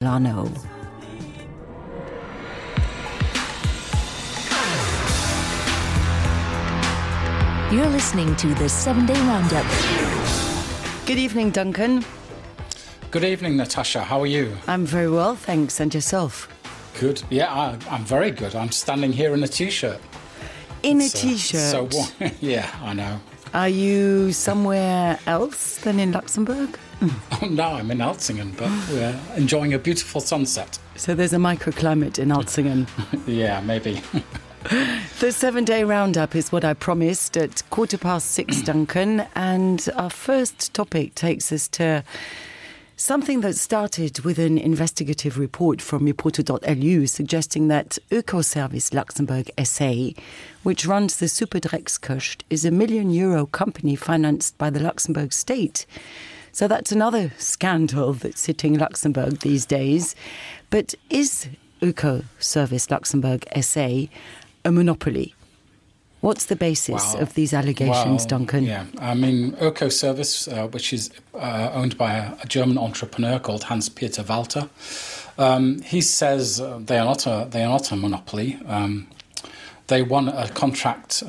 Lano. You're listening to the 7-Day Roundup. Good evening, Duncan. Good evening, Natasha. How are you? I'm very well, thanks. And yourself? Good. Yeah, I'm very good. I'm standing here in a T-shirt. In a T-shirt? So, yeah, I know. Are you somewhere else than in Luxembourg? Oh, no, I'm in Alzingen, but we're enjoying a beautiful sunset. So there's a microclimate in Alzingen. Yeah, maybe. The 7-Day Roundup is what I promised at 6:15, Duncan. And our first topic takes us to something that started with an investigative report from Reporter.lu suggesting that Ökoservice Luxembourg SA, which runs the Superdreckskust, is a €1 million company financed by the Luxembourg state. So that's another scandal that's hitting Luxembourg these days. But is Ökoservice Luxembourg SA a monopoly? What's the basis of these allegations, Duncan? Yeah, I mean, Ökoservice, which is owned by a German entrepreneur called Hans-Peter Walter, he says they are not a monopoly. They won a contract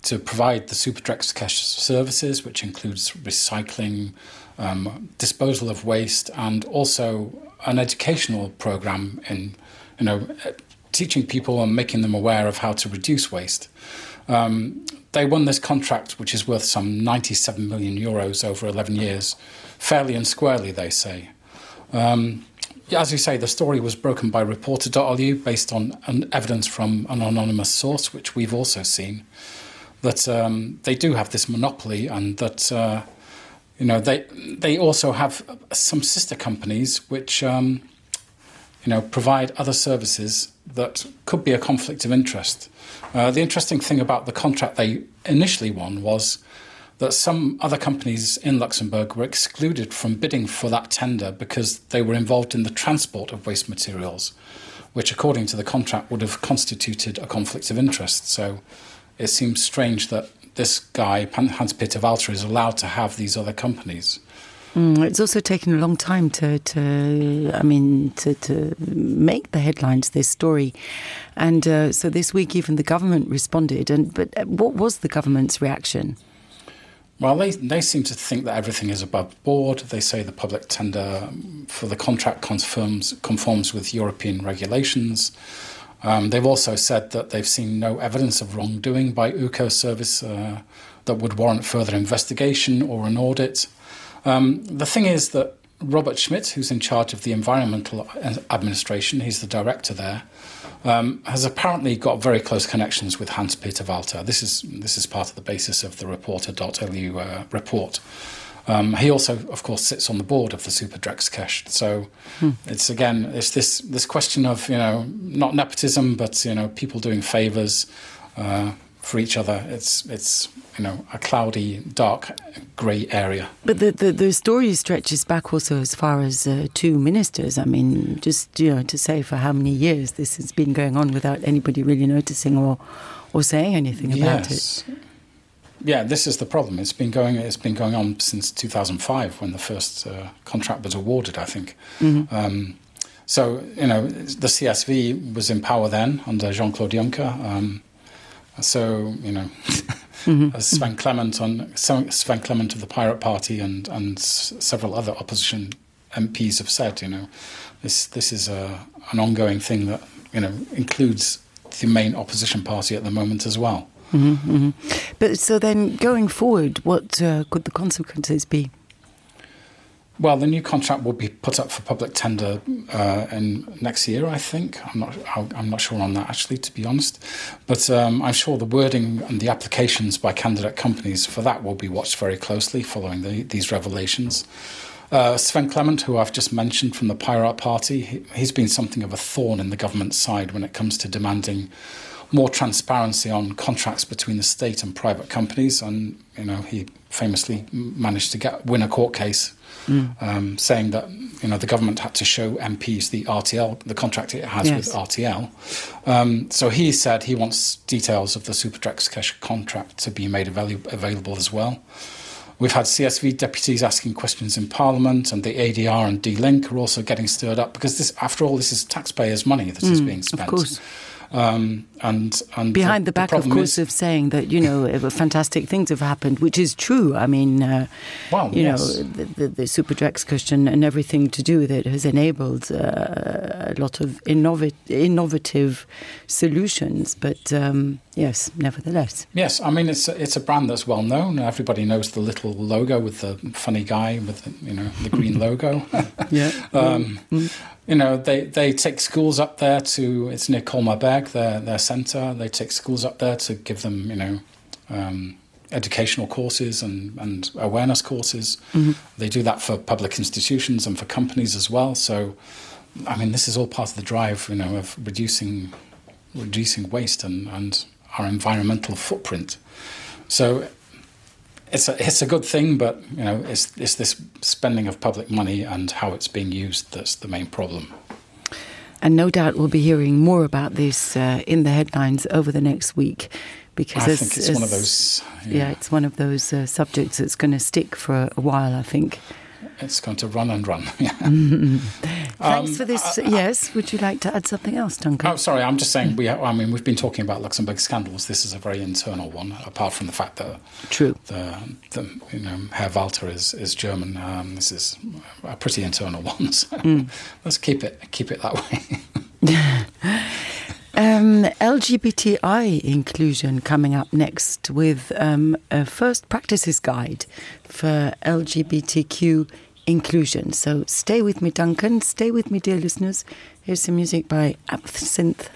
to provide the Superdreckskust services, which includes recycling, disposal of waste, and also an educational program in, teaching people and making them aware of how to reduce waste. They won this contract, which is worth some €97 million over 11 years, fairly and squarely, they say. As you say, the story was broken by Reporter.lu based on evidence from an anonymous source, which we've also seen, that they do have this monopoly, and that they also have some sister companies which provide other services that could be a conflict of interest. The interesting thing about the contract they initially won was that some other companies in Luxembourg were excluded from bidding for that tender because they were involved in the transport of waste materials, which, according to the contract, would have constituted a conflict of interest. So it seems strange that this guy, Hans-Peter Walter, is allowed to have these other companies. It's also taken a long time to make the headlines, this story. And so this week even the government responded. But what was the government's reaction? Well, they seem to think that everything is above board. They say the public tender for the contract conforms with European regulations. They've also said that they've seen no evidence of wrongdoing by Ökoservice that would warrant further investigation or an audit. The thing is that Robert Schmidt, who's in charge of the environmental administration, he's the director there, has apparently got very close connections with Hans-Peter Walter. This is part of the basis of the Reporter.lu report. He also, of course, sits on the board of the Superdreckskust. So it's this question of not nepotism, but people doing favours for each other. It's a cloudy, dark, grey area. But the story stretches back also as far as 2 ministers. I mean, just to say for how many years this has been going on without anybody really noticing or saying anything about it. Yeah, this is the problem. It's been going on since 2005 when the first contract was awarded, I think. Mm-hmm. So the CSV was in power then under Jean-Claude Juncker. As Sven Clement of the Pirate Party and several other opposition MPs have said, this is an ongoing thing that includes the main opposition party at the moment as well. Mm-hmm, mm-hmm. But so then, going forward, what could the consequences be? Well, the new contract will be put up for public tender in next year, I think. I'm not sure on that, actually, to be honest. But I'm sure the wording and the applications by candidate companies for that will be watched very closely following these revelations. Sven Clement, who I've just mentioned from the Pirate Party, he's been something of a thorn in the government's side when it comes to demanding more transparency on contracts between the state and private companies. And, he famously managed to win a court case saying that the government had to show MPs the RTL, the contract it has with RTL. So he said he wants details of the Superdreckskust contract to be made available as well, We've had CSV deputies asking questions in Parliament, and the ADR and D-Link are also getting stirred up because this, after all, this is taxpayers' money that is being spent. Of course. And behind the back, of course, of saying that, fantastic things have happened, which is true. I mean, the super Drex cushion and everything to do with it has enabled a lot of innovative solutions. But yes, nevertheless. Yes, I mean, it's a brand that's well known. Everybody knows the little logo with the funny guy with the green logo. Yeah. They take schools up there it's near Colmar-Berg, their centre. They take schools up there to give them, educational courses and awareness courses. Mm-hmm. They do that for public institutions and for companies as well. So, I mean, this is all part of the drive, of reducing waste and our environmental footprint. So it's a good thing, but it's this spending of public money and how it's being used that's the main problem. And no doubt we'll be hearing more about this in the headlines over the next week, because I think it's one of those. Yeah, it's one of those subjects that's going to stick for a while, I think. It's going to run and run. Yeah. Thanks for this. Yes, would you like to add something else, Duncan? Oh, sorry, I'm just saying. We've been talking about Luxembourg scandals. This is a very internal one. Apart from the fact that Herr Walter is German. This is a pretty internal one. So let's keep it that way. LGBTI inclusion coming up next with a first practices guide for LGBTQ inclusion. So stay with me, Duncan. Stay with me, dear listeners. Here's some music by Absinthe